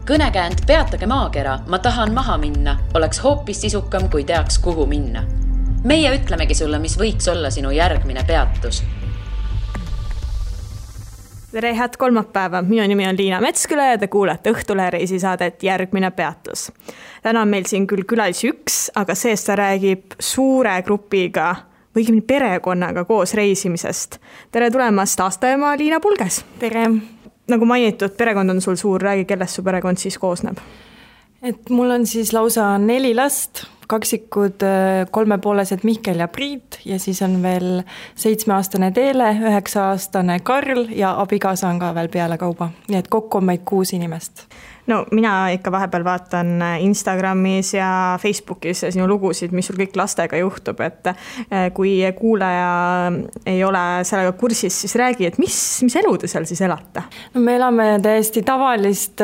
Kõnekäänd Peatage maakera, ma tahan maha minna, oleks hoopis sisukam, kui teaks, kuhu minna. Meie ütlemegi sulle, mis võiks olla sinu järgmine peatus. Tere, head kolmapäeva. Minu nimi on Liina Metsküla ja te kuulete Õhtulehe reisisaadet Järgmine peatus. Täna on meil siin küll külalisi üks, aga seest ta räägib suure grupiga või perekonnaga koos reisimisest. Tere tulemast aastaema Liina Pulges. Tere. Nagu mainitud, perekond on sul suur. Räägi, kellest su perekond siis koosneb? Mul on siis lausa 4 last, kaksikud 3,5-sed Mihkel ja Priit ja siis on veel 7-aastane Teele, 9-aastane Karl ja abikaasa on ka veel peale kauba. Nii et kokku on meid 6 inimest. No mina ikka vahepeal vaatan Instagramis ja Facebookis sinu lugusid, mis sul kõik lastega juhtub, et kui kuulaja ei ole sellega kursis, siis räägi, et mis elu te seal siis elate? No me elame täiesti tavalist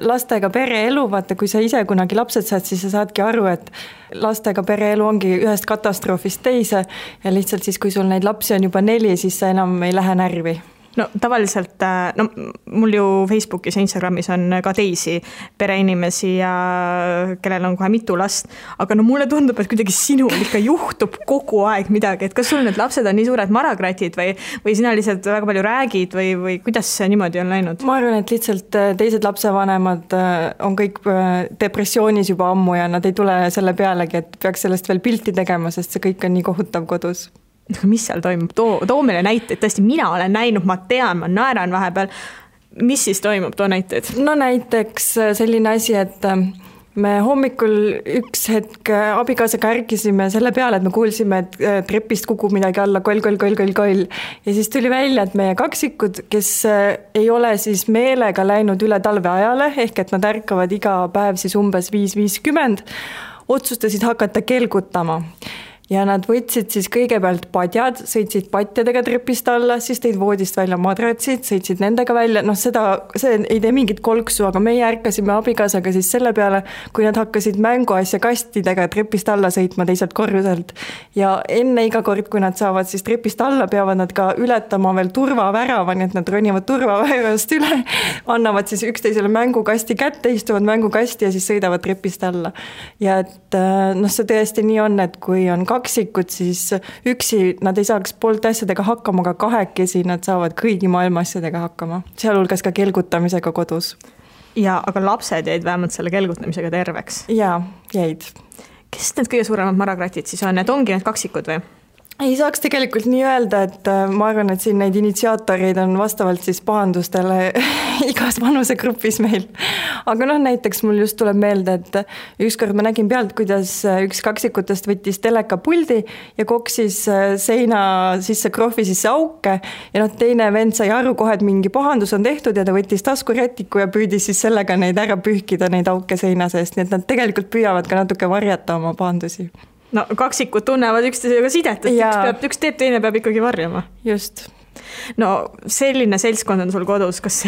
lastega pereelu, vaata kui sa ise kunagi lapsed saad, siis sa saadki aru, et lastega pereelu ongi ühest katastroofist teise ja lihtsalt siis, kui sul neid lapsi on juba 4, siis sa enam ei lähe närvi. No tavaliselt, mul ju Facebookis ja Instagramis on ka teisi pereinimesi ja kellel on kohe mitu last, aga mulle tundub, et kuidagi sinul ikka juhtub kogu aeg midagi, et kas sul need lapsed on nii suured maragratid või sina lihtsalt väga palju räägid või kuidas see niimoodi on läinud? Ma arvan, et lihtsalt teised lapsevanemad on kõik depressioonis juba ammu ja nad ei tule selle pealegi, et peaks sellest veel pilti tegema, sest see kõik on nii kohutav kodus. Mis seal toimub? Too meile näiteid, tõesti mina olen näinud, ma tean, ma naeran vahepeal. Mis siis toimub, too näiteid? No näiteks selline asi, et me hommikul üks hetk abikaasaga ärkisime selle peale, et me kuulsime, et trepist kukub midagi alla, koll. Ja siis tuli välja, et meie kaksikud, kes ei ole siis meelega läinud üle talveajale, ehk et nad ärkavad iga päev siis umbes 5:50, otsustasid hakata kelgutama. Ja nad võtsid siis kõigepealt padjad, sõitsid patjadega trepist alla, siis teid voodist välja madratsid, sõitsid nendega välja. See ei tee mingit kolksu, aga meie ärkasime abikaasaga siis selle peale, kui nad hakkasid mänguasja kastidega trepist alla sõitma teiselt korruselt. Ja enne iga kord, kui nad saavad siis trepist alla, peavad nad ka ületama veel turvavärava, nii et nad ronivad turvaväravast üle, annavad siis üksteisele mängukasti kätte, istuvad mängukasti ja siis sõidavad trepist alla. Ja et see tõesti nii on, et kui on kaksikud, siis üksi nad ei saaks poolt asjadega hakkama, aga kahekesi nad saavad kõigi maailma asjadega hakkama. Sealhulgas ka kelgutamisega kodus. Ja, aga lapsed jäid vähemalt selle kelgutamisega terveks? Jaa, jäid. Kes need kõige suuremad maragratid siis on? Need ongi need kaksikud või? Ei saaks tegelikult nii öelda, et ma arvan, et siin neid initsiaatoreid on vastavalt siis pahandustele igas vanusegrupis meil. Aga näiteks mul just tuleb meelde, et ükskord ma nägin pealt, kuidas üks kaksikutest võttis telekapuldi ja koksis seina sisse krohvi sisse auke ja teine vend sai aru kohe, et mingi pahandus on tehtud ja ta võttis taskurätiku ja püüdis siis sellega neid ära pühkida, neid auke seina seest, nii et nad tegelikult püüavad ka natuke varjata oma pahandusi. No kaksikud tunnevad üksteisega sidet, et üks teeb, teine peab ikkagi varjama. Just. No selline seltskond on sul kodus, kas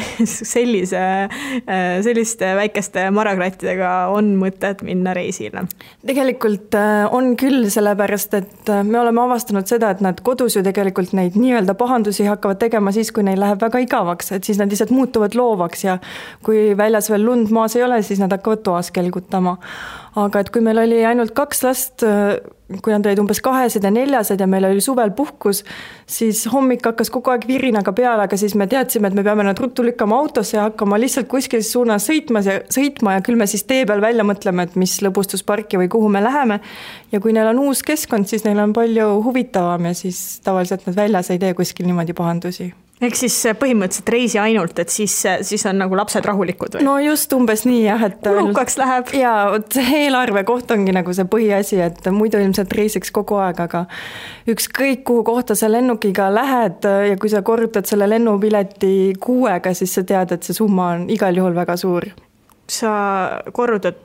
selliste väikeste maragrattidega on mõtet minna reisile? Tegelikult on küll, sellepärast, et me oleme avastanud seda, et nad kodus ju tegelikult neid nii-öelda pahandusi hakkavad tegema siis, kui neil läheb väga igavaks, et siis nad lihtsalt muutuvad loovaks ja kui väljas veel lund maas ei ole, siis nad hakkavad toas kelgutama. Aga et kui meil oli ainult 2 last, kui nad olid umbes 2 ja 4 ja meil oli suvel puhkus, siis hommik hakkas kogu aeg virinaga peale, aga siis me teadsime, et me peame nad ruttu lükkama autosse ja hakkama lihtsalt kuskil suunas sõitma ja küll me siis tee peal välja mõtleme, et mis lõbustusparki või kuhu me läheme. Ja kui neil on uus keskkond, siis neil on palju huvitavam ja siis tavaliselt nad väljas ei tee kuskil niimoodi pahandusi. Ehk siis põhimõtteliselt reisi ainult, et siis on nagu lapsed rahulikud või? No just umbes nii jah, et kulukaks läheb. Ja eelarve koht ongi nagu see põhiasi, et muidu ilmselt reisiks kogu aeg, aga ükskõik kuhu kohta sa lennukiga lähed ja kui sa korrutad selle lennupileti 6-ga, siis sa tead, et see summa on igal juhul väga suur. Sa korrutad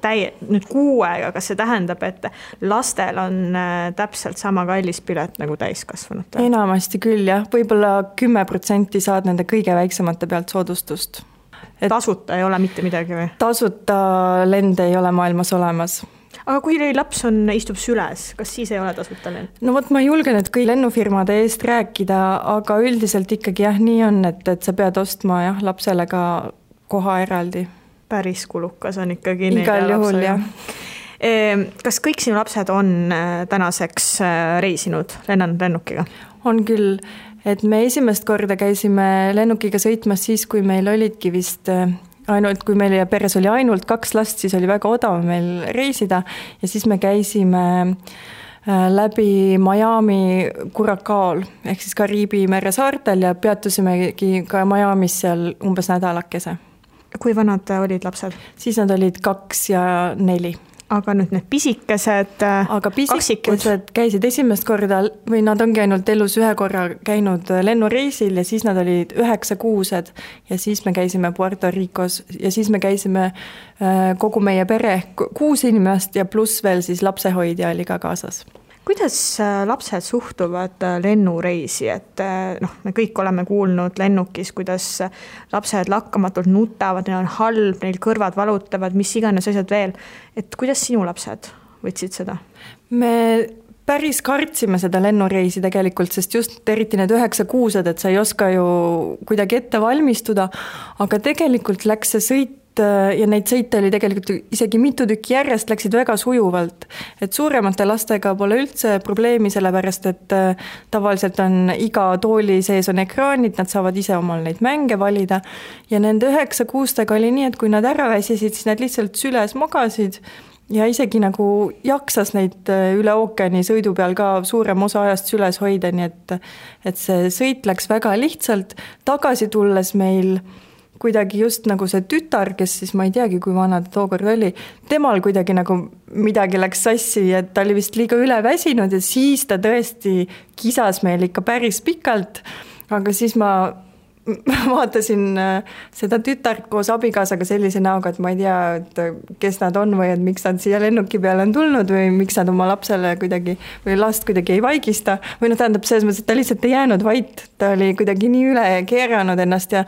nüüd 6-ga, kas see tähendab, et lastel on täpselt sama kallis pilet nagu täiskasvanud? Enamasti küll jah, võib-olla 10% saad nende kõige väiksemate pealt soodustust. Tasuta ei ole mitte midagi või? Tasuta lende ei ole maailmas olemas. Aga kui laps istub süles, kas siis ei ole tasuta lend? No ma julgen, et kõik lennufirmade eest rääkida, aga üldiselt ikkagi jah, nii on, et sa pead ostma lapsele ka koha eraldi. Päris kulukas on ikkagi. Igal juhul, jah. Kas kõik sinu lapsed on tänaseks reisinud, lennanud lennukiga? On küll, et me esimest korda käisime lennukiga sõitmas siis, kui meil olidki vist kui meil peres oli ainult 2 last, siis oli väga odav meil reisida ja siis me käisime läbi Miami Curacao'l ehk siis Kariibi mere saartel ja peatusimegi ka Miamis seal umbes nädalakese. Kui vanad olid lapsed? Siis nad olid 2 ja 4. Aga nüüd need pisikesed kaksikud käisid esimest korda või nad ongi ainult elus ühe korra käinud lennureisil ja siis nad olid 9 kuused ja siis me käisime Puerto Ricos ja siis me käisime kogu meie pere 6 inimest ja pluss veel siis lapsehoidja oli ka kaasas. Kuidas lapsed suhtuvad lennureisi, et me kõik oleme kuulnud lennukis, kuidas lapsed lakkamatult nutavad, neil on halb, neil kõrvad valutavad, mis iganes asjad veel. Et kuidas sinu lapsed võtsid seda? Me päris kartsime seda lennureisi tegelikult, sest just eriti need 9 kuused, et sa ei oska ju kuidagi ette valmistuda, aga tegelikult läks see sõit ja neid sõite oli tegelikult isegi mitu tükki järjest, läksid väga sujuvalt. Et suuremate lastega pole üldse probleemi, sellepärast et tavaliselt on iga tooli sees on ekraanid, nad saavad ise omal neid mänge valida ja nende 9 kuustega oli nii, et kui nad ära väsisid, siis nad lihtsalt süles magasid ja isegi nagu jaksas neid üle ookeani sõidu peal ka suurem osa ajast süles hoida, nii et see sõit läks väga lihtsalt. Tagasi tulles meil kuidagi just nagu see tütar, kes siis ma ei teagi, kui vana ta tookord oli, temal kuidagi nagu midagi läks sassi, et ta oli vist liiga üle väsinud ja siis ta tõesti kisas meil ikka päris pikalt, aga siis ma vaatasin seda tütart koos abikaasaga sellise näoga, et ma ei tea, et kes nad on või et miks nad siia lennuki peale on tulnud või miks nad oma lapsele kuidagi või last kuidagi ei vaigista või tähendab selles mõttes, et ta lihtsalt ei jäänud vait, ta oli kuidagi nii üle keeranud ennast ja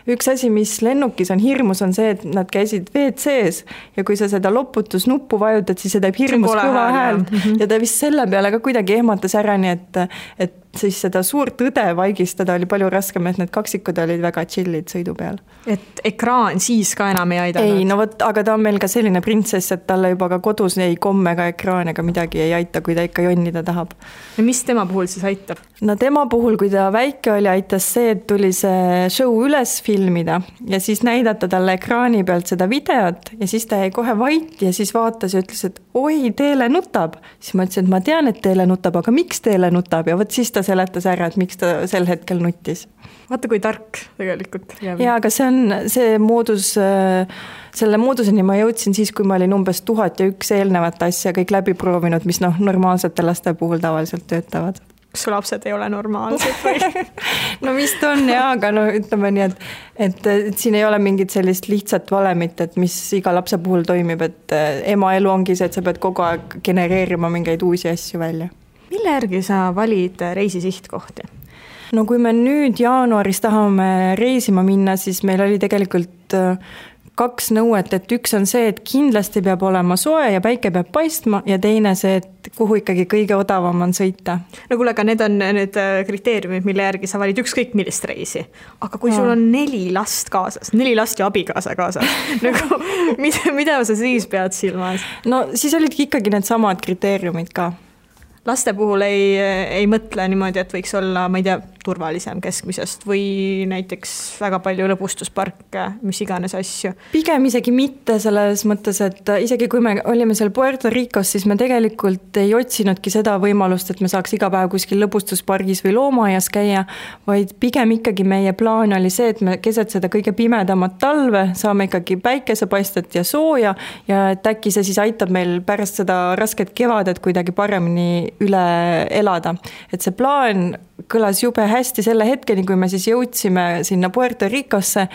üks asi, mis lennukis on hirmus, on see, et nad käisid WC-s ja kui sa seda loputusnuppu vajutad, siis see teeb hirmus kõva häält ja ta vist selle peale ka kuidagi ehmatas ära, nii et siis seda suurt õde vaigistada oli palju raskem, et need kaksikud olid väga chillid sõidu peal. Et ekraan siis ka enam ei aidanud? Ei, no võt, aga ta on meil ka selline printsess, et talle juba ka kodus ei komme ega ekraan ega midagi ei aita, kui ta ikka jonnida tahab. Ja mis tema puhul siis aitab? No tema puhul, kui ta väike oli, aitas see, et tuli see show üles filmida ja siis näidata talle ekraani pealt seda videot ja siis ta jäi kohe vait ja siis vaatas ja ütles, et oi, Teele nutab. Siis ma ütlesin, et ma tean, et Teele nutab, aga miks Teele nutab ja võt siis ta seletas ära, et miks ta sel hetkel nuttis. Vaata, kui tark tegelikult. Ja, aga see moodus, selle mooduseni ma jõudsin siis, kui ma olin umbes 1001 eelnevat asja kõik läbi proovinud, mis normaalsete laste puhul tavaliselt töötavad. Kas su lapsed ei ole normaalsed või? No vist on jah, aga ütleme nii, et siin ei ole mingit sellist lihtsat valemit, et mis iga lapse puhul toimib, et ema elu ongi see, et sa pead kogu aeg genereerima mingeid uusi asju välja. Mille järgi sa valid reisi sihtkohti? No kui me nüüd jaanuaris tahame reisima minna, siis meil oli tegelikult 2 nõuet, et üks on see, et kindlasti peab olema soe ja päike peab paistma ja teine see, et kuhu ikkagi kõige odavam on sõita. No kuule, aga need on need kriteeriumid, mille järgi sa valid ükskõik millist reisi. Aga kui sul on 4 last kaasas, 4 last ja abikaasa kaasas, nagu, mida sa siis pead silmas? No siis olidki ikkagi need samad kriteeriumid ka. Laste puhul ei mõtle niimoodi, et võiks olla, ma ei tea, turvalisem keskmisest või näiteks väga palju lõbustusparke, mis iganes asju. Pigem isegi mitte selles mõttes, et isegi kui me olime seal Puerto Ricos, siis me tegelikult ei otsinudki seda võimalust, et me saaks iga päev kuskil lõbustuspargis või loomaaias käia, vaid pigem ikkagi meie plaan oli see, et me keset seda kõige pimedamat talve saame ikkagi päikesepaistet ja sooja ja et äkki see siis aitab meil pärast seda rasket kevadet kuidagi paremini üle elada. Et see plaan kõlas jube hästi selle hetkeni, kui me siis jõudsime sinna Puerto Ricosse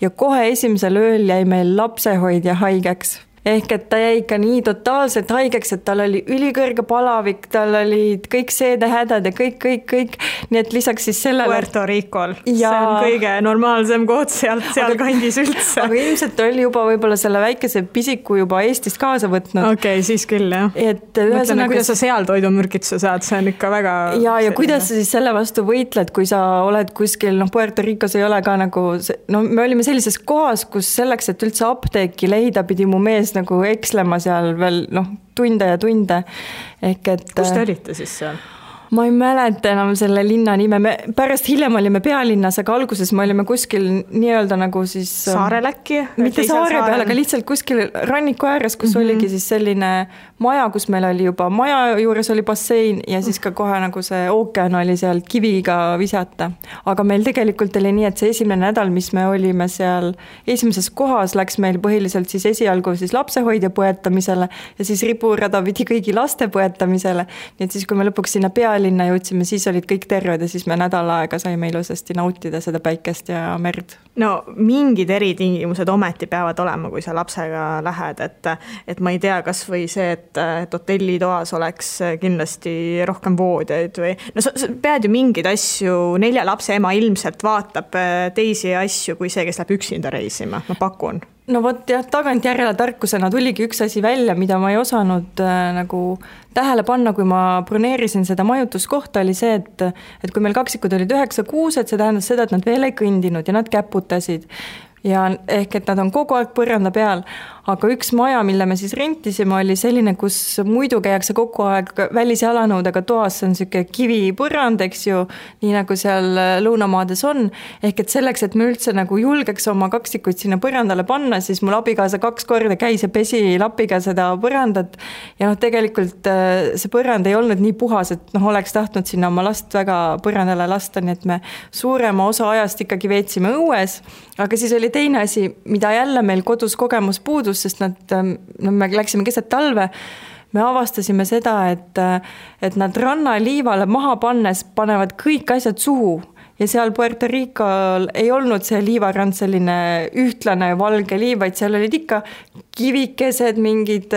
ja kohe esimesel ööl jäi meil lapsehoidja haigeks. ehk et ta jäi ikka nii totaalselt haigeks, et tal oli ülikõrge palavik, tal olid kõik seedehädad ja kõik, nii et lisaks siis sellele... Puerto Ricol, see on kõige normaalsem koht seal kandis üldse. Aga ilmselt oli juba võib-olla selle väikese pisiku juba Eestist kaasa võtnud. Okei, siis küll, jah. Mõtleme, kuidas sa seal toidumürgituse saad, see on ikka väga... Ja kuidas sa siis selle vastu võitled, kui sa oled kuskil, Puerto Ricos ei ole ka nagu... me olime sellises kohas, kus selleks, et üldse apteeki leida, pidi mu mees nagu ekslema seal veel tunde ja tunde. Kus te olite siis seal? Ma ei mäleta enam selle linna nime, me pärast hiljem olime pealinnas, aga alguses me olime kuskil nii-öelda nagu siis... Saarel äkki? Mitte saare peal, aga lihtsalt kuskil ranniku ääres, kus oligi siis selline maja, kus meil oli juba maja juures oli bassein ja siis ka kohe nagu see ookean oli seal kiviga visata. Aga meil tegelikult oli nii, et see esimene nädal, mis me olime seal esimeses kohas, läks meil põhiliselt siis esialgu siis lapsehoidja põetamisele ja siis riburada pidi kõigi laste põetamisele. Nii et siis, kui me lõpuks sinna pealinna jõudsime, siis olid kõik terved ja siis me nädal aega saime ilusasti nautida seda päikest ja merd. No mingid eritingimused ometi peavad olema, kui sa lapsega lähed, et ma ei tea, kas või see, et hotellitoas oleks kindlasti rohkem voodjaid või... No sa pead ju mingeid asju, 4 lapse ema ilmselt vaatab teisi asju kui see, kes läheb üksinda reisima, ma pakun. No vot jah, tagantjärele tarkusena tuligi üks asi välja, mida ma ei osanud nagu tähele panna, kui ma broneerisin seda majutuskohta, oli see, et kui meil kaksikud olid 9 kuused, see tähendas seda, et nad veel ei kõndinud ja nad käputasid. Ja ehk, et nad on kogu aeg põranda peal, aga üks maja, mille me siis rentisime, oli selline, kus muidu käiakse kogu aeg välisjalanõudega toas, see on selline kivipõrand, eks ju, nii nagu seal lõunamaades on, ehk et selleks, et me üldse nagu julgeks oma kaksikuid sinna põrandale panna, siis mul abikaasa 2 korda käis ja pesi lapiga seda põrandat ja tegelikult see põrand ei olnud nii puhas, et oleks tahtnud sinna oma last väga põrandale lasta, nii et me suurema osa ajast ikkagi veetsime õues, aga siis oli teine asi, mida jälle meil kodus kogemus puudus, sest me läksime keset talve, me avastasime seda, et nad rannaliivale maha pannes panevad kõik asjad suhu ja seal Puerto Ricol ei olnud see liivarand selline ühtlane valge liiv, vaid seal olid ikka kivikesed, mingid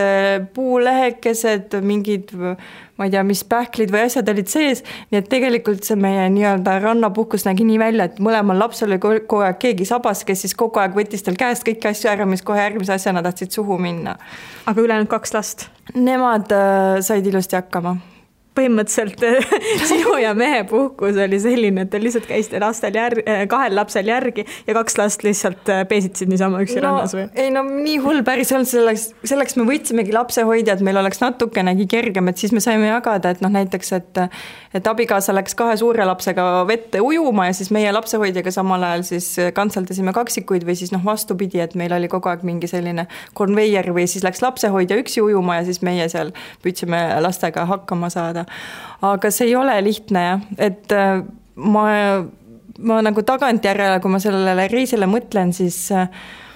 puulehekesed, mingid, ma ei tea, mis pähklid või asjad olid sees, nii et tegelikult see meie nii-öelda rannapuhkus nägi nii välja, et mõlemal lapsel oli kogu aeg keegi sabas, kes siis kogu aeg võttis tal käest kõiki asju ära, mis kohe järgmise asjana tahtsid suhu minna. Aga ülejäänud 2 last? Nemad said ilusti hakkama. Põhimõtteliselt sinu ja mehe puhkus oli selline, et te lihtsalt käisite 2 lapsel järgi ja 2 last lihtsalt peesitsid niisama üksi rannas või? Ei, nii hull päris olnud, selleks me võtsimegi lapsehoidjad, meil oleks natukenegi kergem, et siis me saime jagada, et näiteks, et abikaasa läks 2 suure lapsega vette ujuma ja siis meie lapsehoidjaga samal ajal siis kantseldasime kaksikuid või siis vastupidi, et meil oli kogu aeg mingi selline konveier või siis läks lapsehoidja üksi ujuma ja siis meie seal püüdsime lastega hakkama saada. Aga see ei ole lihtne, et ma nagu tagantjärele, kui ma sellele reisile mõtlen, siis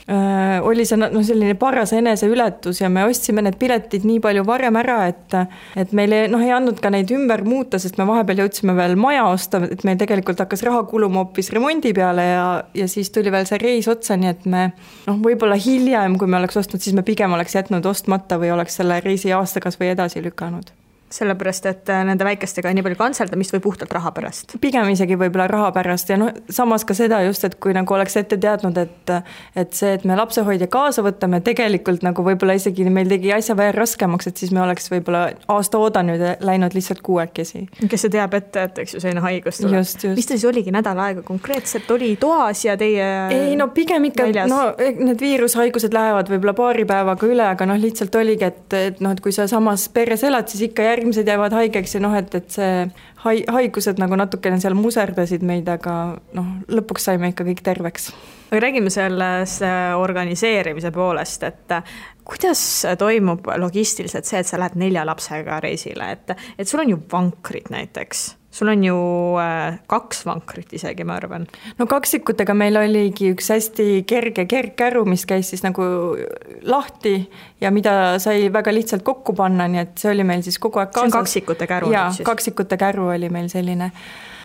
oli see selline paras eneseületus ja me ostsime need piletid nii palju varem ära, et meil ei andnud ka neid ümber muuta, sest me vahepeal jõudsime veel maja osta, et meil tegelikult hakkas raha kuluma hoopis remondi peale ja siis tuli veel see reis otsa, nii et me võib-olla hiljem, kui me oleks ostnud, siis me pigem oleks jätnud ostmata või oleks selle reisi aastakas või edasi lükanud. Sellepärast, et nende väikestega nii palju kantseldamist või puhtalt raha pärast? Pigem isegi võib-olla raha pärast ja samas ka seda just, et kui nagu oleks ette teadnud, et see, et me lapsehoidja kaasa võtame, tegelikult nagu võib-olla isegi meil tegi asja veel raskemaks, et siis me oleks võib-olla aasta oodanud ja läinud lihtsalt 6. Kes see teab ette, et eks ju selline haigus tuleb. Just. Mis ta siis oligi nädal aega konkreetselt? Oli toas ja teie ei, pigem ikka, need viirushaigused lähevad võib-olla paari päevaga üle, aga lihtsalt oligi, et kui sa samas peres elad, siis ikka järgmised jäävad haigeks ja et see haigused nagu natukene seal muserdasid meid, aga lõpuks saime ikka kõik terveks. Aga räägime selles organiseerimise poolest, et kuidas toimub logistiliselt see, et sa lähed 4 lapsega reisile, et sul on ju vankrid näiteks. Sul on ju 2 vankrit isegi, ma arvan. Kaksikutega meil oligi üks hästi kerge kergkäru, mis käis siis nagu lahti ja mida sai väga lihtsalt kokku panna, nii et see oli meil siis kogu aeg kaasas. See on kaksikute käru. Jaa, kaksikute käru oli meil selline.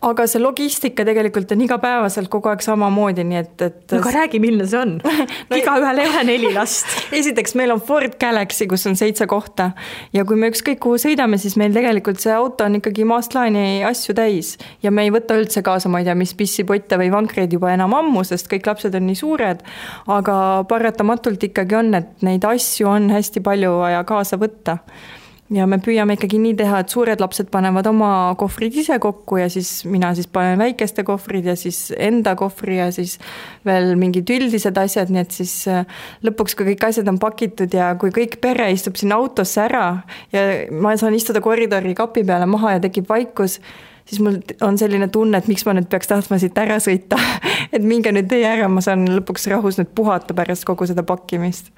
aga see logistika tegelikult on igapäevaselt kogu aeg samamoodi, nii et no aga räägi, milline see on? No, igaühel ei ole 4 last. Esiteks meil on Ford Galaxy, kus on 7 kohta ja kui me ükskõik kuhu sõidame, siis meil tegelikult see auto on ikkagi maast laeni asju täis ja me ei võta üldse kaasa, ma ei tea, mis pissipotte või vankreid juba enam ammu, sest kõik lapsed on nii suured, aga paratamatult ikkagi on, et neid asju on hästi palju vaja kaasa võtta. Ja me püüame ikkagi nii teha, et suured lapsed panevad oma kohvrid ise kokku ja siis mina siis panen väikeste kohvrid ja siis enda kohvri ja siis veel mingid üldised asjad, nii et siis lõpuks, kui kõik asjad on pakitud ja kui kõik pere istub sinna autosse ära ja ma saan istuda koridori kapi peale maha ja tekib vaikus, siis mul on selline tunne, et miks ma nüüd peaks tahtma siit ära sõita, et minge nüüd teie ära, ma saan lõpuks rahus nüüd puhata pärast kogu seda pakkimist.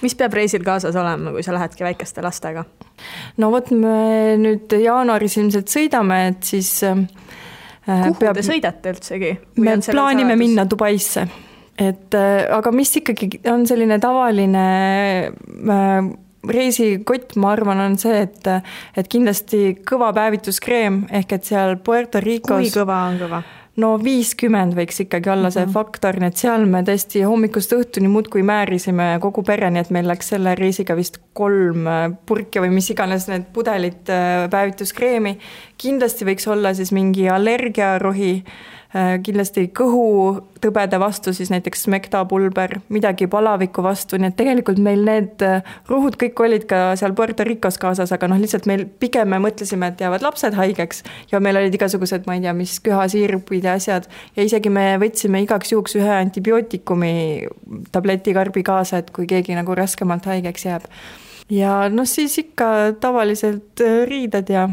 Mis peab reisil kaasas olema, kui sa lähedki väikeste lastega? No vot, me nüüd jaanuaris ilmselt sõidame, et siis kuhu te sõidate üldsegi? Me plaanime minna Dubaisse, aga mis ikkagi on selline tavaline reisikott, ma arvan, on see, et kindlasti kõva päevituskreem, ehk et seal Puerto Ricos... Kui kõva on kõva? No 50 võiks ikkagi olla see faktor, nii et seal me tõesti hommikust õhtuni muudkui määrisime kogu pere, nii et meil läks selle reisiga vist 3 purki või mis iganes need pudelid päevituskreemi. Kindlasti võiks olla siis mingi allergiarohi, kindlasti kõhutõbede vastu, siis näiteks smektapulber, midagi palaviku vastu, nii et tegelikult meil need ruhud kõik olid ka seal Puerto Ricos kaasas, aga lihtsalt meil pigem me mõtlesime, et jäävad lapsed haigeks ja meil olid igasugused, ma ei tea, mis köhasiirupid ja asjad ja isegi me võtsime igaks juhuks ühe antibiootikumi tabletikarbi kaasa, et kui keegi nagu raskemalt haigeks jääb. Ja siis ikka tavaliselt riided ja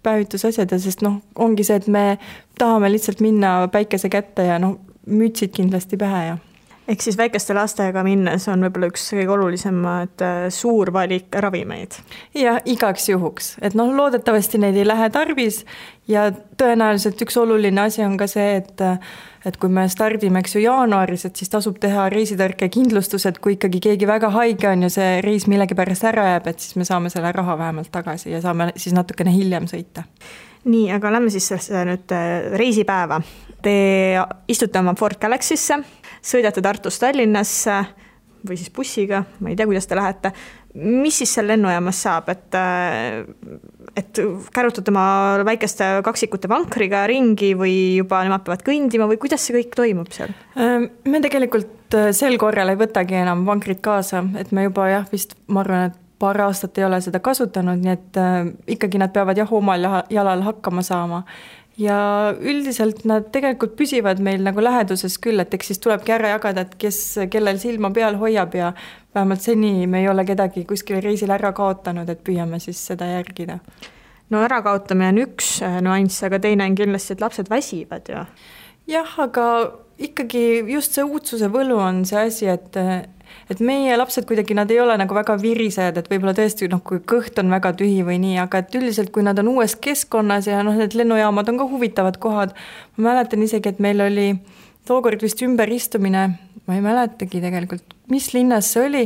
päevitusasjad ja sest ongi see, et me tahame lihtsalt minna päikese kätte ja mütsid kindlasti pähe ja. Ehk siis väikeste lastega minnes on võib-olla üks kõige olulisemad suur valik ravimeid. Ja igaks juhuks, et loodetavasti neid ei lähe tarvis ja tõenäoliselt üks oluline asi on ka see, et kui me stardime jaanuaris, et siis tasub teha reisitõrke kindlustus, et kui ikkagi keegi väga haige on ja see reis millegi pärast ära jääb, et siis me saame selle raha vähemalt tagasi ja saame siis natukene hiljem sõita. Nii, aga lähme siis nüüd reisipäeva. Te istute oma Ford Galaxy'sse, sõidate Tartust Tallinnasse või siis bussiga, ma ei tea, kuidas te lähete. Mis siis seal lennujaamas saab, et kärutate oma väikeste kaksikute vankriga ringi või juba nemad peavad kõndima või kuidas see kõik toimub seal? Me tegelikult sel korral ei võtagi enam vankrit kaasa, et me juba vist, ma arvan, et paar aastat ei ole seda kasutanud, nii et ikkagi nad peavad omal jalal hakkama saama. Ja üldiselt nad tegelikult püsivad meil nagu läheduses küll, et eks siis tulebki ära jagada, et kellel silma peal hoiab ja vähemalt seni me ei ole kedagi kuskil reisil ära kaotanud, et püüame siis seda järgida. No ärakaotamine on üks nuanss, aga teine on kindlasti, et lapsed väsivad ju. Jah, aga ikkagi just see uudsuse võlu on see asi, et meie lapsed kuidagi, nad ei ole nagu väga virised, et võib-olla tõesti, kui kõht on väga tühi või nii, aga et üldiselt, kui nad on uues keskkonnas ja need lennujaamad on ka huvitavad kohad, ma mäletan isegi, et meil oli tookord vist ümberistumine, ma ei mäletagi tegelikult, mis linnas see oli,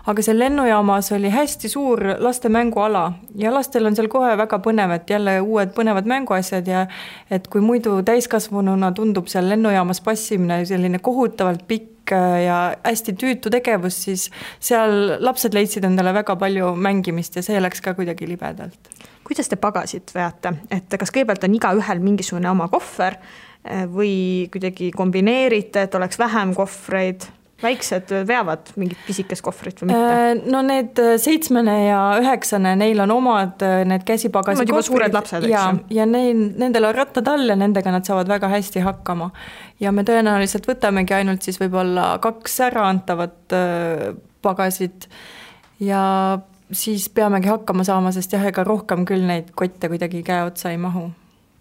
aga seal lennujaamas oli hästi suur laste mänguala ja lastel on seal kohe väga põnev, et jälle uued põnevad mänguasjad ja et kui muidu täiskasvanuna tundub seal lennujaamas passimine selline kohutavalt pikk ja hästi tüütu tegevus, siis seal lapsed leidsid endale väga palju mängimist ja see läks ka kuidagi libedalt. Kuidas te pagasid veate? Et kas kõigepealt on iga ühel mingisugune oma kohver või kuidagi kombineerite, et oleks vähem kohvreid? Väiksed veavad mingit pisikest kohvrit või mitte? No need 7 ja 9, neil on omad need käsipagasi kohvrid. Suured lapsed, ja nendel on rattad all ja nendega nad saavad väga hästi hakkama. Ja me tõenäoliselt võtamegi ainult siis võib-olla 2 ära antavat pagasid ja siis peamegi hakkama saama, sest ega rohkem küll neid kotte kuidagi käe otsa ei mahu.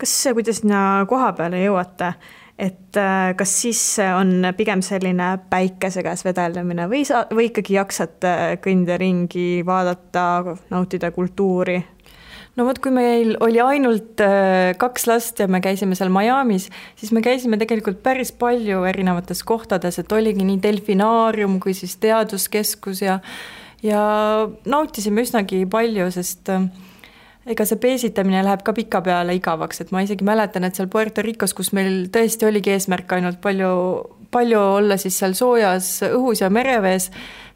Kas kuidas sinna koha peale jõuate? Et kas siis on pigem selline päikese käes vedeldamine või ikkagi jaksate kõnda ringi, vaadata, nautida kultuuri? No vot, kui meil oli ainult 2 last ja me käisime seal Miamis, siis me käisime tegelikult päris palju erinevates kohtades, et oligi nii delfinaarium kui siis teaduskeskus ja nautisime üsnagi palju, sest ega see peesitamine läheb ka pika peale igavaks, et ma isegi mäletan, et seal Puerto Ricos, kus meil tõesti oligi eesmärk ainult palju olla siis seal soojas õhus ja merevees,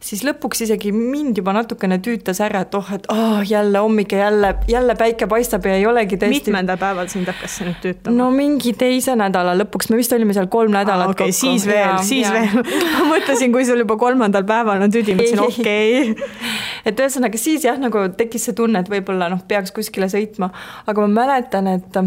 siis lõpuks isegi mind juba natukene tüütas ära, et jälle hommik ja jälle päike paistab ja ei olegi tõesti. Mitmendal päeval sind hakkas see nüüd tüütama? No mingi teise nädala lõpuks, me vist olime seal 3 nädalat kokku. Siis veel. Ma mõtlesin, kui sul juba 3. päeval on tüdi, mõtlesin okei. Et ühesõnaga siis jah, nagu tekkis see tunne, et võib-olla peaks kuskile sõitma, aga ma mäletan, et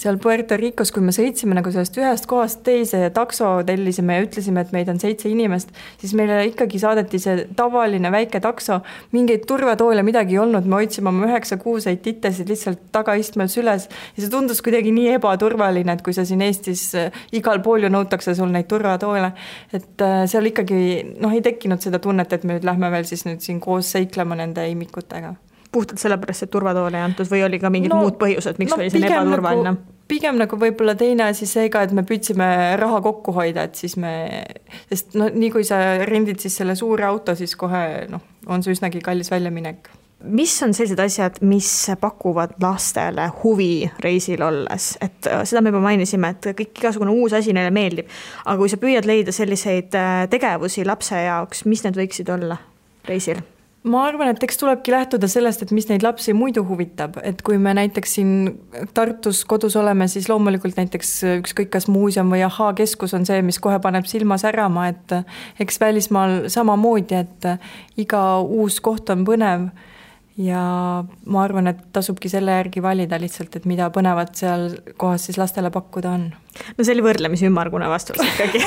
seal Puerto Ricos, kui me sõitsime nagu sellest ühest kohast teise ja takso tellisime ja ütlesime, et meid on 7 inimest, siis meile ikkagi saadeti see tavaline väike takso, mingeid turvatoole midagi ei olnud, me hoidsime oma 9-6 titesid lihtsalt tagaistmel süles ja see tundus kuidagi nii ebaturvaline, et kui sa siin Eestis igal pool ju nõutakse sul neid turvatoole, et seal ikkagi ei tekkinud seda tunnet, et me nüüd lähme veel siis nüüd siin koos seiklema nende imikutega. Puhtalt sellepärast, et turvatoole ei antud või oli ka mingid muud põhjused, miks oli see ebaturvaline? Pigem nagu võib-olla teine asi seega, et me püüdsime raha kokku hoida, et siis sest nii kui sa rendid siis selle suure auto, siis kohe on see üsnagi kallis väljaminek. Mis on sellised asjad, mis pakuvad lastele huvi reisil olles? Et seda me juba mainisime, et kõik igasugune uus asi neile meeldib, aga kui sa püüad leida selliseid tegevusi lapse jaoks, mis need võiksid olla reisil? Ma arvan, et eks tulebki lähtuda sellest, et mis neid lapsi muidu huvitab, et kui me näiteks siin Tartus kodus oleme, siis loomulikult näiteks ükskõik kas muuseum või keskus on see, mis kohe paneb silma särama, et eks välismaal samamoodi, et iga uus koht on põnev ja ma arvan, et tasubki selle järgi valida lihtsalt, et mida põnevat seal kohas siis lastele pakkuda on. No see oli võrdlemisi ümmargune vastus ikkagi.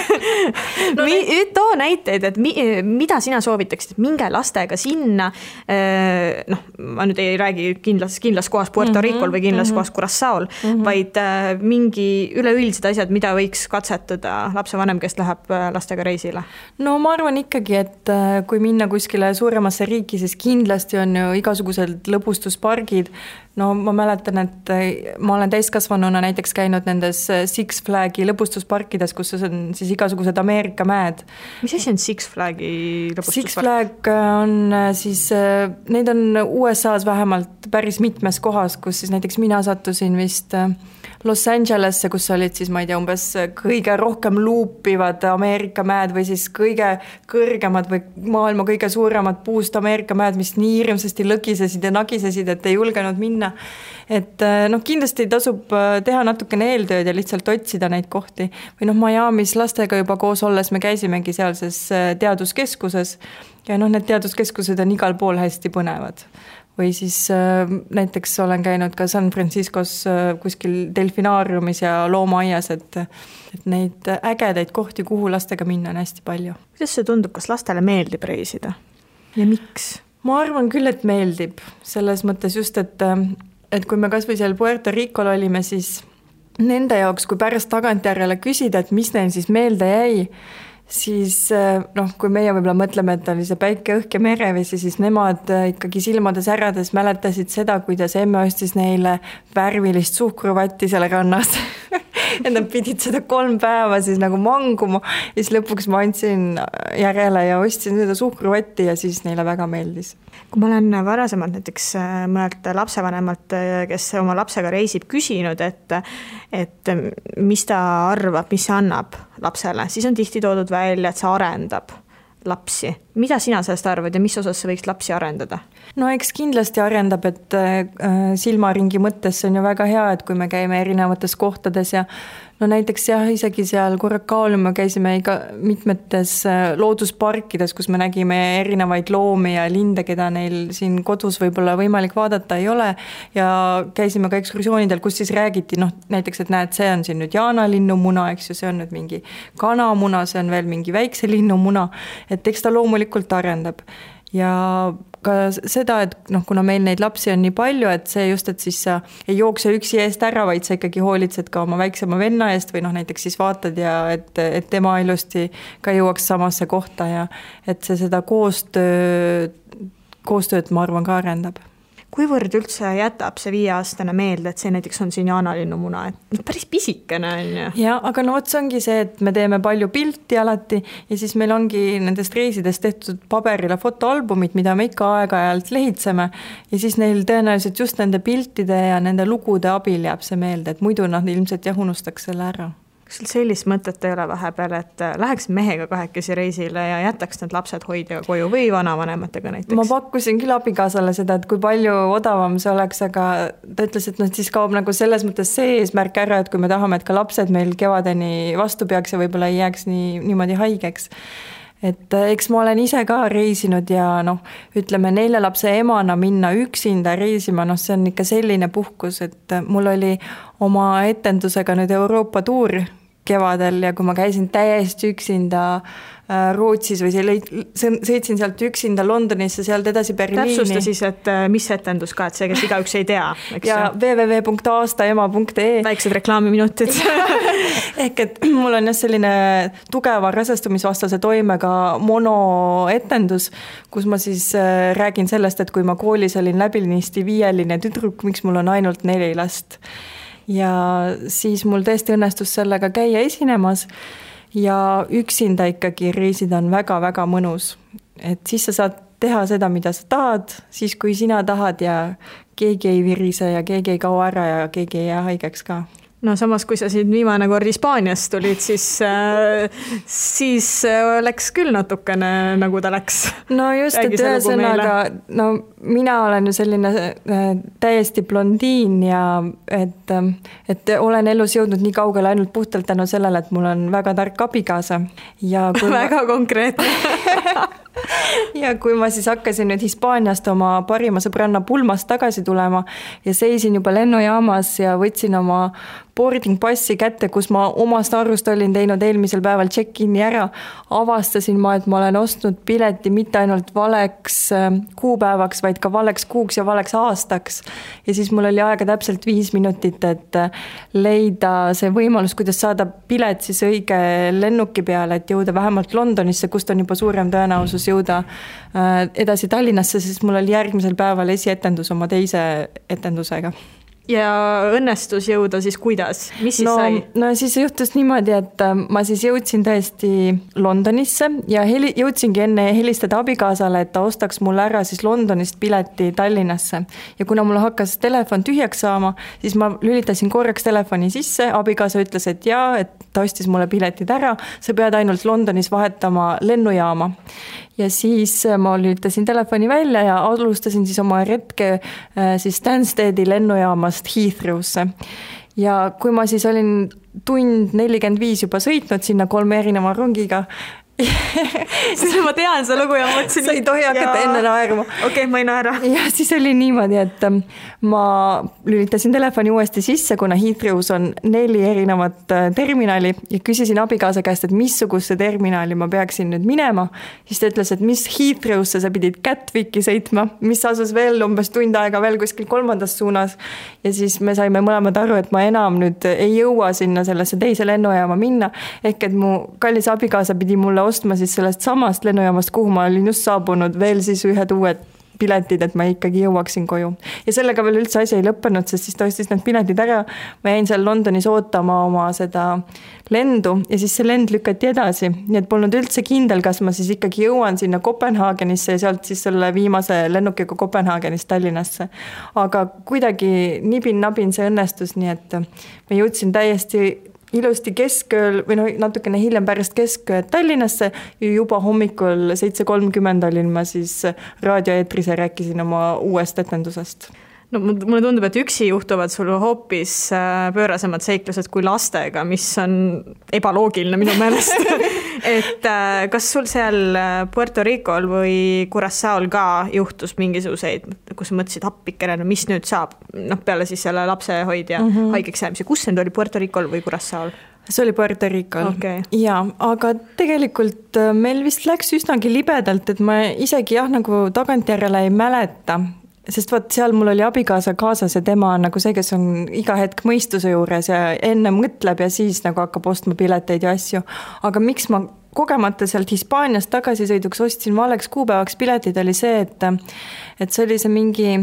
Too näiteid, et mida sina soovitaksid, minge lastega sinna, ma nüüd ei räägi kindlas kohas Puerto Ricol või kindlas kohas Curaçaol, vaid mingi üleüldised asjad, mida võiks katsetada lapsevanem, kes läheb lastega reisile? No ma arvan ikkagi, et kui minna kuskile suuremasse riiki, siis kindlasti on ju igasugused lõbustuspargid. No ma mäletan, et ma olen täiskasvanuna näiteks käinud nendes Six Flagi lõbustusparkides, kus on siis igasugused Ameerika mäed. Mis asi on Six Flagi lõbustuspark? Six Flag on siis, neid on USA-s vähemalt päris mitmes kohas, kus siis näiteks mina sattusin vist Los Angelesse, kus olid siis, ma ei tea, umbes kõige rohkem luupivad Ameerika mäed või siis kõige kõrgemad või maailma kõige suuremad puust Ameerika mäed, mis nii hirmsasti lõgisesid ja nagisesid, et ei julgenud minna. Et kindlasti tasub teha natukene eeltööd ja lihtsalt otsida neid kohti. Või Miamis lastega juba koos olles me käisimegi sealses teaduskeskuses ja need teaduskeskused on igal pool hästi põnevad. Või siis näiteks olen käinud ka San Franciscos kuskil delfinaariumis ja loomaaias, et neid ägedaid kohti, kuhu lastega minna on hästi palju. Kuidas see tundub, kas lastele meeldib reisida? Ja miks? Ma arvan küll, et meeldib. Selles mõttes just, et kui me kas või seal Puerto Ricol olime, siis nende jaoks, kui pärast tagantjärjele küsida, et mis neil siis meelde jäi, siis kui meie võib-olla mõtleme, et oli see päike, õhk ja merevesi, siis nemad ikkagi silmades ärades mäletasid seda, kuidas emme ostis neile värvilist suhkruvatti seal rannas. Ja nad pidid seda 3 päeva siis nagu manguma ja siis lõpuks ma andsin järele ja ostsin seda suhkruvatti ja siis neile väga meeldis. Kui ma olen varasemalt näiteks mõnelt lapsevanemalt, kes oma lapsega reisib, küsinud, et mis ta arvab, mis see annab lapsele, siis on tihti toodud välja, et see arendab lapsi. Mida sina sellest arvad ja mis osas see võiks lapsi arendada? No eks kindlasti arendab, et silmaringi mõttes on ju väga hea, et kui me käime erinevates kohtades ja näiteks jah, isegi seal Curaçaol me käisime mitmetes loodusparkides, kus me nägime erinevaid loomi ja linde, keda neil siin kodus võib-olla võimalik vaadata ei ole ja käisime ka ekskursioonidel, kus siis räägiti näiteks, et näed, see on siin nüüd jaanalinnumuna, eks ju, see on nüüd mingi kanamuna, see on veel mingi väikse linnumuna, et eks ta loomulikult arendab. Ja ka seda, et kuna meil neid lapsi on nii palju, et see just, et siis sa ei jookse üksi eest ära, vaid sa ikkagi hoolitsed ka oma väiksema venna eest või näiteks siis vaatad ja et tema ilusti ka jõuaks samasse kohta ja et see seda koostööd ma arvan ka arendab. kuivõrd üldse jätab see 5-aastane meelde, et see näiteks on siin jaanalinnumuna, et päris pisikene on ju. Ja, aga no see ongi see, et me teeme palju pilti alati ja siis meil ongi nendest reisidest tehtud paberile fotoalbumid, mida me ikka aeg-ajalt lehitseme ja siis neil tõenäoliselt just nende piltide ja nende lugude abil jääb see meelde, et muidu nad ilmselt unustaks selle ära. Kas sul sellist mõtet ei ole vahepeal, et läheks mehega 2 reisile ja jätaks need lapsed hoidjaga koju või vanavanematega näiteks? Ma pakkusin küll abikaasale seda, et kui palju odavam see oleks, aga ta ütles, et siis kaob nagu selles mõttes see eesmärk ära, et kui me tahame, et ka lapsed meil kevadeni vastu peaks ja võib-olla ei jääks niimoodi haigeks. Et eks ma olen ise ka reisinud ja ütleme 4 lapse emana minna üksinda reisima, see on ikka selline puhkus, et mul oli oma etendusega nüüd Euroopa tuur kevadel ja kui ma käisin täiesti üksinda Rootsis või sõitsin sealt üksinda Londonisse, sealt edasi Berliini. Täpsusta siis, et mis etendus ka, et see, kes igaüks ei tea. Ja www.aastaema.ee Väiksed reklaamiminutid. Ehk et mul on selline tugeva rasestumisvastase toimega monoetendus, kus ma siis räägin sellest, et kui ma koolis olin läbinisti 5-line tüdruk, miks mul on ainult 4 last. Ja siis mul tõesti õnnestus sellega käia esinemas ja üksinda ikkagi reisida on väga-väga mõnus. Et siis sa saad teha seda, mida sa tahad, siis kui sina tahad ja keegi ei virise ja keegi ei kao ära ja keegi ei jää haigeks ka. No samas, kui sa siin viimane kord Hispaaniast tulid, siis läks küll natukene, nagu ta läks. No just, et ühesõnaga, mina olen ju selline täiesti blondiin ja et olen elus jõudnud nii kaugele ainult puhtalt tänu sellele, et mul on väga tark abikaasa. Ja väga konkreetne. Ja kui ma siis hakkasin nüüd Hispaaniast oma parima sõbranna pulmast tagasi tulema ja seisin juba lennujaamas ja võtsin oma boarding passi kätte, kus ma omast arvust olin teinud eelmisel päeval check-in'i ära, avastasin ma, et ma olen ostnud pileti mitte ainult valeks kuupäevaks, vaid ka valeks kuuks ja valeks aastaks. Ja siis mul oli aega täpselt 5 minutit, et leida see võimalus, kuidas saada pilet siis õige lennuki peale, et jõuda vähemalt Londonisse, kust on juba suurem tõenäosus jõuda edasi Tallinnasse, sest mul oli järgmisel päeval esietendus oma teise etendusega. Ja õnnestus jõuda siis kuidas? Mis siis sai? No siis juhtus niimoodi, et ma siis jõudsin tõesti Londonisse ja jõudsingi enne helistada abikaasale, et ta ostaks mulle ära siis Londonist pileti Tallinnasse. Ja kuna mul hakkas telefon tühjaks saama, siis ma lülitasin korraks telefoni sisse, abikaasa ütles, et jaa, et ta ostis mulle piletid ära, sa pead ainult Londonis vahetama lennujaama. Ja siis ma lülitasin telefoni välja ja alustasin siis oma retke siis Stanstedi lennujaamast Heathrow'sse. Ja kui ma siis olin 1:45 juba sõitnud sinna 3 erineva rongiga, siis ma tean see lugu ja mõtlesin, sa ei tohi hakata enne naerma. Okei, ma ei naera. Ja siis oli niimoodi, et ma lülitasin telefoni uuesti sisse, kuna Heathrow's on 4 erinevat terminali ja küsisin abikaasa käest, et missuguse terminali ma peaksin nüüd minema. Siis ta ütles, et mis Heathrow'sse sa pidid Gatwicki sõitma, mis asus veel umbes tund aega veel kuskil 3. suunas. Ja siis me saime mõlemad aru, et ma enam nüüd ei jõua sinna sellesse teise lennujaama minna. Ehk et mu kallis abikaasa pidi mulle ostma siis sellest samast lennujaamast, kuhu ma olin just saabunud veel siis ühed uued piletid, et ma ikkagi jõuaksin koju. Ja sellega veel üldse asi ei lõppenud, sest siis ta ostis need piletid ära. Ma jäin seal Londonis ootama oma seda lendu ja siis see lend lükati edasi. Nii et polnud üldse kindel, kas ma siis ikkagi jõuan sinna Kopenhaagenisse ja sealt siis selle viimase lennukiga Kopenhaagenist Tallinnasse. Aga kuidagi nibin-nabin see õnnestus, nii et ma jõudsin täiesti ilusti keskööl või natukene hiljem pärast keskööd Tallinnasse ja juba hommikul 7:30 olin ma siis raadioeetris ja rääkisin oma uuest etendusest. No mulle tundub, et üksi juhtuvad sul hoopis pöörasemad seiklused kui lastega, mis on ebaloogiline minu meelest. Et kas sul seal Puerto Ricol või Curaçaol ka juhtus mingisuguseid, kus mõtlesid appikene, no mis nüüd saab? Peale siis selle lapsehoidja haigeks jäämise. Kus see oli, Puerto Ricol või Curaçaol? See oli Puerto Ricol. Okay. Ja, aga tegelikult meil vist läks üsnagi libedalt, et ma isegi nagu tagantjärele ei mäleta. Sest vaat seal mul oli abikaasa kaasas ja tema on nagu see, kes on iga hetk mõistuse juures ja enne mõtleb ja siis nagu hakkab ostma pileteid ja asju. Aga miks ma kogemata sealt Hispaaniast tagasisõiduks ostsin valeks kuupäevaks piletid, oli see, et see oli see mingi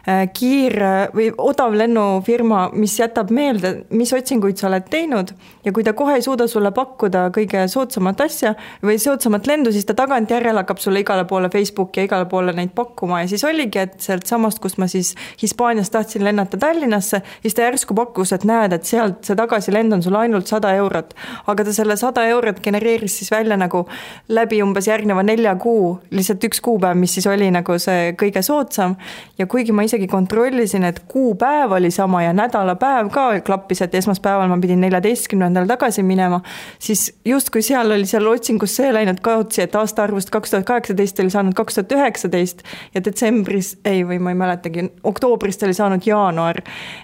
või odav lennufirma, mis jätab meelde, mis otsinguid sa oled teinud ja kui ta kohe ei suuda sulle pakkuda kõige soodsamat asja või soodsamat lendu, siis ta tagantjärele hakkab sulle igale poole Facebooki ja igale poole neid pakkuma ja siis oligi, et sealt samast, kus ma siis Hispaaniast tahtsin lennata Tallinnasse, siis ta järsku pakkus, et näed, et sealt see tagasilend on sulle ainult 100 eurot, aga ta selle 100 eurot genereeris siis välja nagu läbi umbes järgneva 4 kuu, lihtsalt üks kuupäev, mis siis oli nagu see kõige soodsam ja kuigi ma isegi kontrollisin, et kuupäev oli sama ja nädalapäev ka klappis, et esmaspäeval ma pidin 14. tagasi minema, siis justkui seal oli seal otsingus see läinud kaotsi, et aastaarvust 2018 oli saanud 2019 ja detsembris, või ma ei mäletagi, oktoobrist oli saanud jaanuar.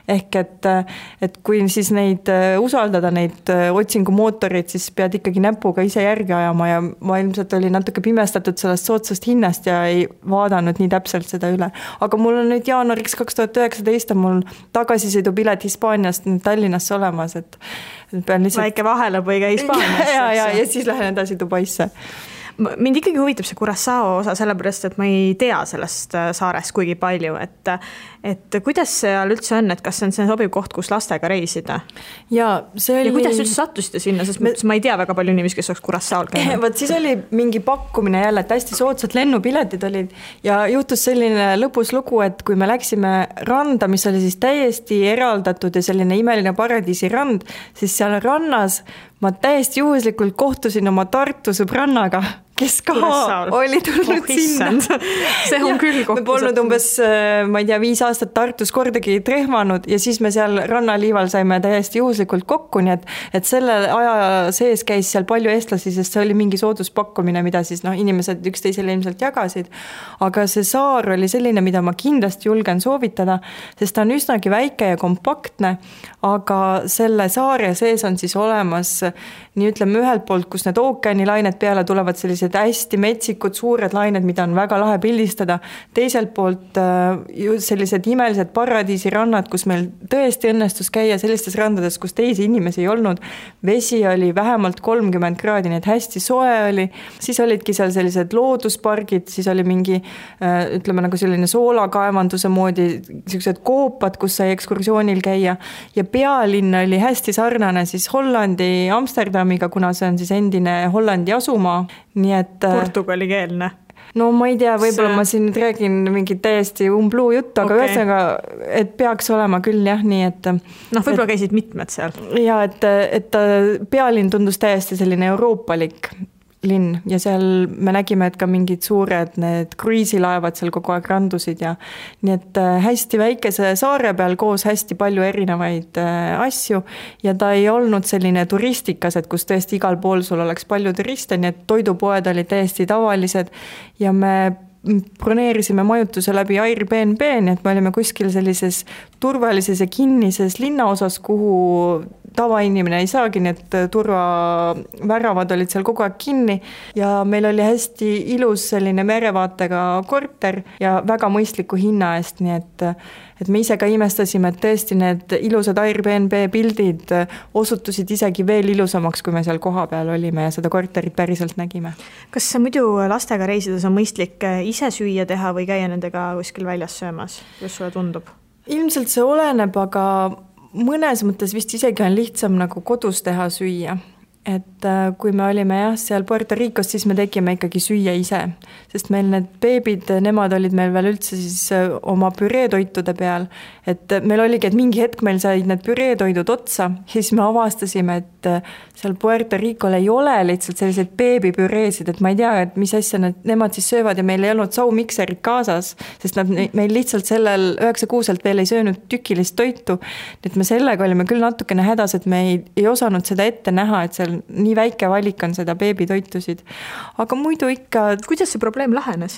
Ehk et kui siis neid usaldada, neid otsingumootorid, siis pead ikkagi näpuga ise järgi ajama ja ma ilmselt oli natuke pimestatud sellest soodsast hinnast ja ei vaadanud nii täpselt seda üle. Aga mul on nüüd jaanuariks 2019 on mul tagasisõidupilet Hispaaniast Tallinnasse olemas, et pean lihtsalt... Väike vahelõpõige Hispaaniasse. ja siis lähen edasi Dubaisse. Mind ikkagi huvitab see Curaçao osa, sellepärast, et ma ei tea sellest saarest kuigi palju, et kuidas seal üldse on, et kas see on see sobiv koht, kus lastega reisida? Ja kuidas üldse sattusite sinna, sest ma ei tea väga palju inimesi, kes oleks Curaçaol käinud. Võt siis oli mingi pakkumine jälle, et hästi soodsad lennupiletid olid ja juhtus selline lõbus lugu, et kui me läksime randa, mis oli siis täiesti eraldatud ja selline imeline paradiisi rand, siis seal rannas ma täiesti juhuslikult kohtusin oma Tartu sõbrannaga, kes ka oli tulnud sinna. See on küll kohtus. Me polnud umbes, ma ei tea, 5 aastat Tartus kordagi trehmanud ja siis me seal rannaliival saime täiesti juhuslikult kokku, nii et selle aja sees käis seal palju eestlasi, sest see oli mingi sooduspakkumine, mida siis inimesed üksteisele ilmselt jagasid. Aga see saar oli selline, mida ma kindlasti julgen soovitada, sest ta on üsnagi väike ja kompaktne, aga selle saare sees on siis olemas nii ütleme ühelt poolt, kus need ookeanilained peale tulevad sellised hästi metsikud, suured lained, mida on väga lahe pildistada. Teiselt poolt sellised imelised paradiisirannad, kus meil tõesti õnnestus käia sellistes randades, kus teisi inimesi ei olnud. Vesi oli vähemalt 30 kraadi, nii et hästi soe oli. Siis olidki seal sellised looduspargid, siis oli mingi, ütleme nagu selline soolakaevanduse moodi, sellised koopad, kus sai ekskursioonil käia. Ja pealinn oli hästi sarnane siis Hollandi Amsterdamiga, kuna see on siis endine Hollandi asumaa. Nii et portugalikeelne. No ma ei tea, võib-olla ma siin nüüd räägin mingi täiesti umbluu juttu, aga ühesõnaga, et peaks olema küll jah, nii et... võib-olla käisid mitmed seal. Ja, et pealinn tundus täiesti selline euroopalik linn ja seal me nägime, et ka mingid suured need kruiisilaevad seal kogu aeg randusid ja nii et hästi väikese saare peal koos hästi palju erinevaid asju ja ta ei olnud selline turistikas, et kus tõesti igal pool sul oleks palju turiste, nii et toidupoed olid täiesti tavalised ja me broneerisime majutuse läbi Airbnb, nii et me olime kuskil sellises turvalises ja kinnises linnaosas, kuhu tavainimene ei saagi, nii et turvaväravad olid seal kogu aeg kinni ja meil oli hästi ilus selline merevaatega korter ja väga mõistliku hinna eest, nii et me ise ka imestasime, et tõesti need ilusad Airbnb pildid osutusid isegi veel ilusamaks, kui me seal koha peal olime ja seda korterit päriselt nägime. Kas muidu lastega reisides on mõistlik ise süüa teha või käia nendega kuskil väljas söömas? Kuidas sulle tundub? Ilmselt see oleneb, aga mõnes mõttes vist isegi on lihtsam nagu kodus teha süüa. Et kui me olime seal Puerto Ricos, siis me tegime ikkagi süüa ise, sest meil need beebid, nemad olid meil veel üldse siis oma püreetoitude peal, et meil oligi, et mingi hetk meil said need püreetoidud otsa, siis me avastasime, et seal Puerto Ricol ei ole lihtsalt selliseid beebipüreesid, et ma ei tea, et mis asja nemad siis söövad ja meil ei olnud saumikserit kaasas, sest nad meil lihtsalt sellel 9 kuuselt veel ei söönud tükilist toitu, et me sellega olime küll natukene hädas, et me ei osanud seda ette näha, et seal nii väike valik on seda beebitoitusid. Aga muidu ikka... Kuidas see probleem lahenes?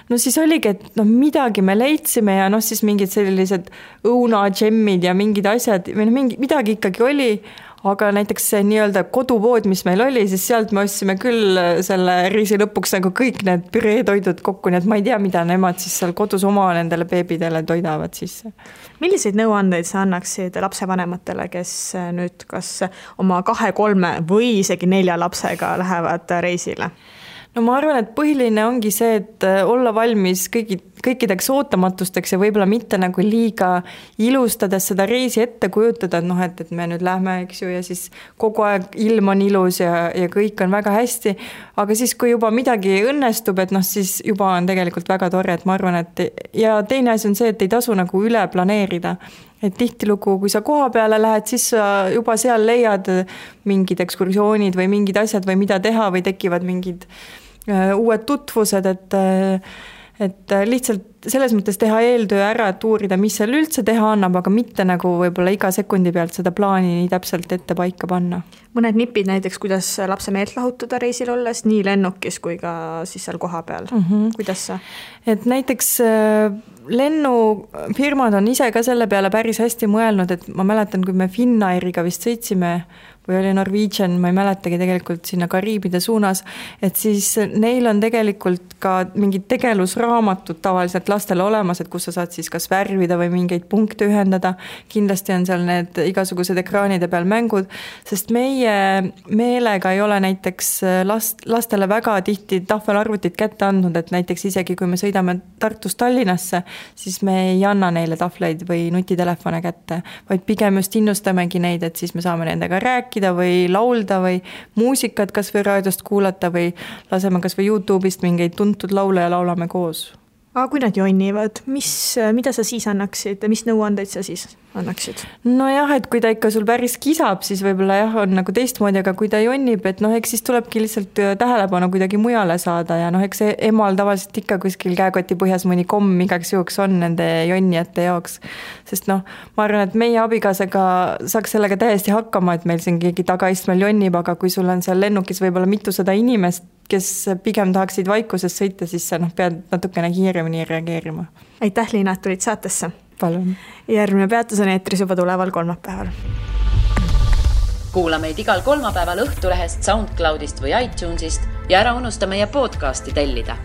No siis oligi, et midagi me leidsime ja siis mingid sellised õunadžemmid ja mingid asjad, midagi ikkagi oli, aga näiteks see nii-öelda kodupood, mis meil oli, siis sealt me ostsime küll selle reisi lõpuks nagu kõik need püreetoidud kokku, nii et ma ei tea, mida nemad siis seal kodus oma nendele beebidele toidavad sisse. Milliseid nõuandeid sa annaksid lapsevanematele, kes nüüd kas oma 2, 3 või isegi 4 lapsega lähevad reisile? No ma arvan, et põhiline ongi see, et olla valmis kõikideks ootamatusteks ja võib-olla mitte nagu liiga ilustades seda reisi ette kujutada, et me nüüd lähme, eks ju, ja siis kogu aeg ilm on ilus ja kõik on väga hästi, aga siis, kui juba midagi õnnestub, et siis juba on tegelikult väga tore, et ma arvan, et ja teine asi on see, et ei tasu nagu üle planeerida. Et tihtilugu, kui sa koha peale lähed, siis sa juba seal leiad mingid ekskursioonid või mingid asjad või mida teha või tekivad mingid uued tutvused, et lihtsalt selles mõttes teha eeltöö ära, et uurida, mis seal üldse teha annab, aga mitte nagu võib-olla iga sekundi pealt seda plaani nii täpselt ette paika panna. Mõned nipid näiteks, kuidas lapse meelt lahutada reisil olles, nii lennukis kui ka siis seal koha peal. Kuidas sa? Et näiteks lennufirmad on ise ka selle peale päris hästi mõelnud, et ma mäletan, kui me Finnairiga vist sõitsime või oli Norwegian, ma ei mäletagi tegelikult sinna Kariibide suunas, et siis neil on tegelikult ka mingid tegelusraamatud tavaliselt lastele olemas, et kus sa saad siis kas värvida või mingeid punkte ühendada. Kindlasti on seal need igasugused ekraanide peal mängud, sest meie meelega ei ole näiteks lastele väga tihti tahvelarvutit kätte andnud, et näiteks isegi kui me sõidame Tartust Tallinnasse, siis me ei anna neile tahvleid või nutitelefone kätte, vaid pigem just innustamegi neid, et siis me saame nendega rääkida või laulda või muusikat kas või raadiost kuulata või laseme kas või YouTube'ist mingeid tuntud laule ja laulame koos. Aga kui nad jonnivad, mida sa siis annaksid, mis nõuandeid sa siis annaksid? No jah, et kui ta ikka sul päris kisab, siis võib-olla jah, on nagu teistmoodi, aga kui ta jonnib, et eks siis tulebki lihtsalt tähelepanu kuidagi mujale saada ja eks emal tavaliselt ikka kuskil käekoti põhjas mõni komm igaks juhuks on nende jonnijate jaoks. Sest ma arvan, et meie abikaasaga saaks sellega täiesti hakkama, et meil siin keegi tagaistmel jonnib, aga kui sul on seal lennukis võib-olla mitusada inimest, kes pigem tahaksid vaikuses sõita, siis sa pead natukene kiiremini reageerima. Aitäh, Liina, et tulid saatesse. Palun. Järgmine peatus on eetris juba tuleval kolmapäeval. Kuula meid igal kolmapäeval Õhtulehest, SoundCloudist või iTunesist ja ära unusta meie podcasti tellida.